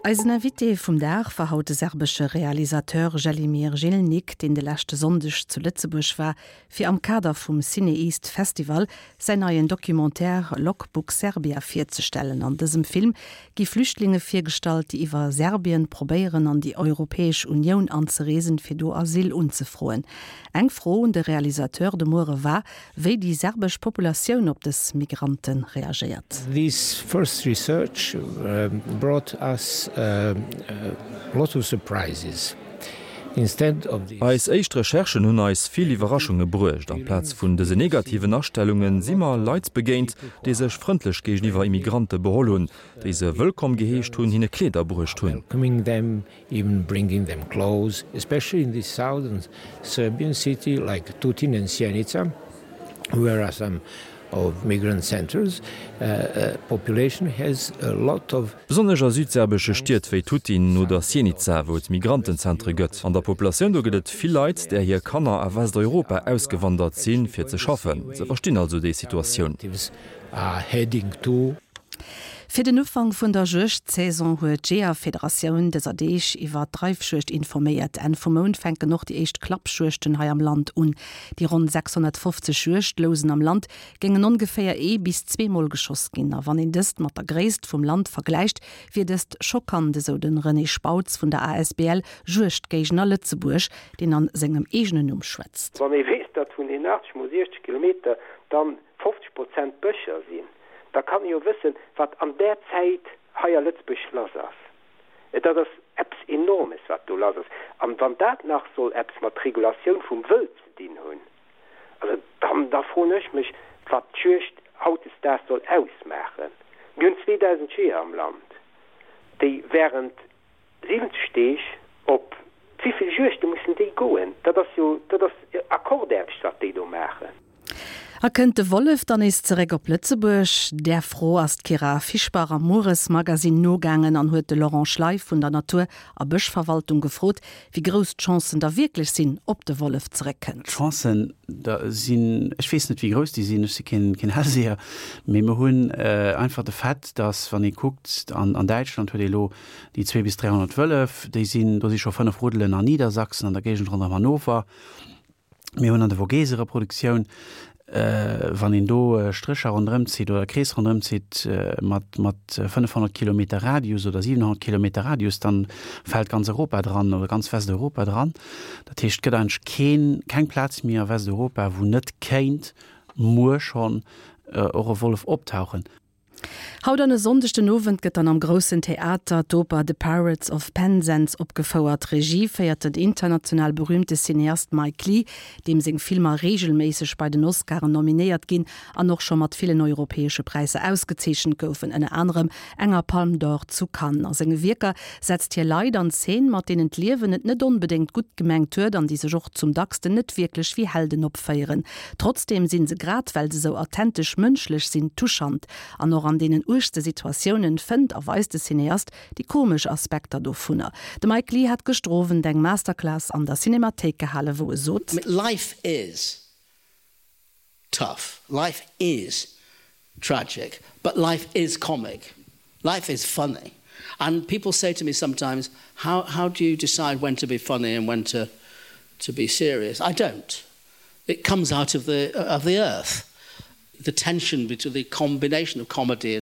Eisen Invité vum Dag war haut de serbesche Realisateur Želimir Žilnik, deen de leschte Sonndeg zu Lëtzebuerg war, fir am Kader vum CinEast Festival säin neien Documentaire Logbook Serbia virzestellen. An dësem Film gi Flüchtlinge virgestallt, déi iwwer Serbien probéieren an déi Europäesch Unioun anzereesen, fir do Asyl unzefroen. Eng Fro un de Realisateur de Muere war, wéi déi serbesch Populatioun op dës Migrante reagéiert. This first research brought us a lot of surprises. Instead of these. Eis éischt Recherchen hunn eis vill Iwwerraschunge bruecht. Amplaz vun dëse negativen Astellunge si mer Leit begéint, déi sech frëndlech géigeniwwer Immigrante beholl hunn, déi se wëllkomm geheescht hunn, hinne Kleeder bruecht hunn. Even bringing them clothes, especially in the southern Serbian city like Tutin and Sjenica, where are some of migrant centers, population has a lot of. Besonnesch a südserbesche Stied wéi Tutin oder Sjenica, wou et Migrantenzentre gëtt. An der Populatioun do gëtt et vill Leit, där hir Kanner a Westeuropa ausgewandert sinn, fir ze schaffen. Se verstinn also déi Situatioun. Are heading to. Fir den Ufank vun der Juegdsaison huet d'Jeeërfederatioun dëser Deeg iwwer d'Reifjuegd informéiert. Enn vum Mount fänken och déi éischt Klappjuegten hei am Land un. Déi ronn 650 Juegdlousen am Land géingen ongeféier ee bis zweemol geschoss ginn. A wann een dëst mat der Gréisst vum Land vergläicht, wier dëst schockant, esou de René Spautz vun der asbl Juegdgéigner Lëtzebuerg, deen an sengem eegenen Numm schwätzt. Wann ee weess, datt vun den 80 mol 60 Kilometer dann 50 Prozent Bëscher sinn, da kann ee jo wëssen, wat an där Zäit hei a Lëtzebuerg lass ass. Dat ass eppes Enormes, wat do lass ass. An wann dat nach soll eppes mat Regulatioun vum Wëld ze dinn hunn, also dann, da froen ech mech, wat d'Juegd hautdesdaags soll ausmaachen. Mir hunn 2.000 Jeeër am Land, déi während 70 Deeg, op wéivill Juegde mussen déi goen? Dat ass jo, dat ass Akkordaarbecht, wat déi do maachen. A kënnt de Wollef dann nees zeréck op Lëtzebuerg? Där Fro ass d'Kyra Fischbach am Mueresmagasinn nogaangen an huet de Laurent Schley vun der Natur a Bëschverwaltung gefrot, wéi grouss d'Chancen da wierklech sinn, ob de Wollef zeréckkënnt. D'Chancen da sinn, ech weess net wéi grouss déi sinn, ech si keen Hellseher, mee mer hunn einfach de Fait, datt wann ee kuckt, an Däitschland huet ee elo Déi zwee bis 300 Wëllef, déi sinn, do si scho 5 Ruddelen an Niedersachsen, an der Géigend ronderëm Hannover. Mir hunn an de Vogese Reproduktioun, wann een do Strécher ronderëm zitt oder Krees ronderëm zitt mat, mat 500 Kilometer Radius oder 700 Kilometer Radius, dann fält ganz Europa dran oder ganz Westeuropa dran. Dat heescht, et gëtt eigentlech keen, keng Plaz méi a Westeuropa, wou net kéint muer schonn och e Wollef optauchen. Haut an e Sonndeg den Owend gëtt dann am Groussen Theater d'Oper The Pirates of Penzance opgefouert. Regie féiert den international berüümte Cineast Mike Leigh, deem seng Filmer reegelméisseg bei den Oscaren nominéiert ginn an och scho mat villen europäesche Präisser ausgezeechent goufen, ënner anerem enger Palme d'Or zu Cannes. A senge Wierker setzt hie Leit an Zeen, mat deenen d'Liewen et net onbedéngt gutt gemengt huet an déi sech och zum dacksten net wierklech wéi Helden opféieren. Trotzdeem sinn se, grad well se sou authentesch mënschlech sinn, touchant. An och an deenen uergste Situatiounen fënnt a weist de Cineast déi komesch Aspekter dovunner. De Mike Leigh hat gëschter Owend eng Masterclass an der Cinemathéik gehalen, wou e sot. Life is tough, life is tragic, but life is comic, life is funny. And people say to me sometimes, how, how do you decide when to be funny and when to, to be serious? I don't. It comes out of the, of the earth. The tension between the combination of comedy.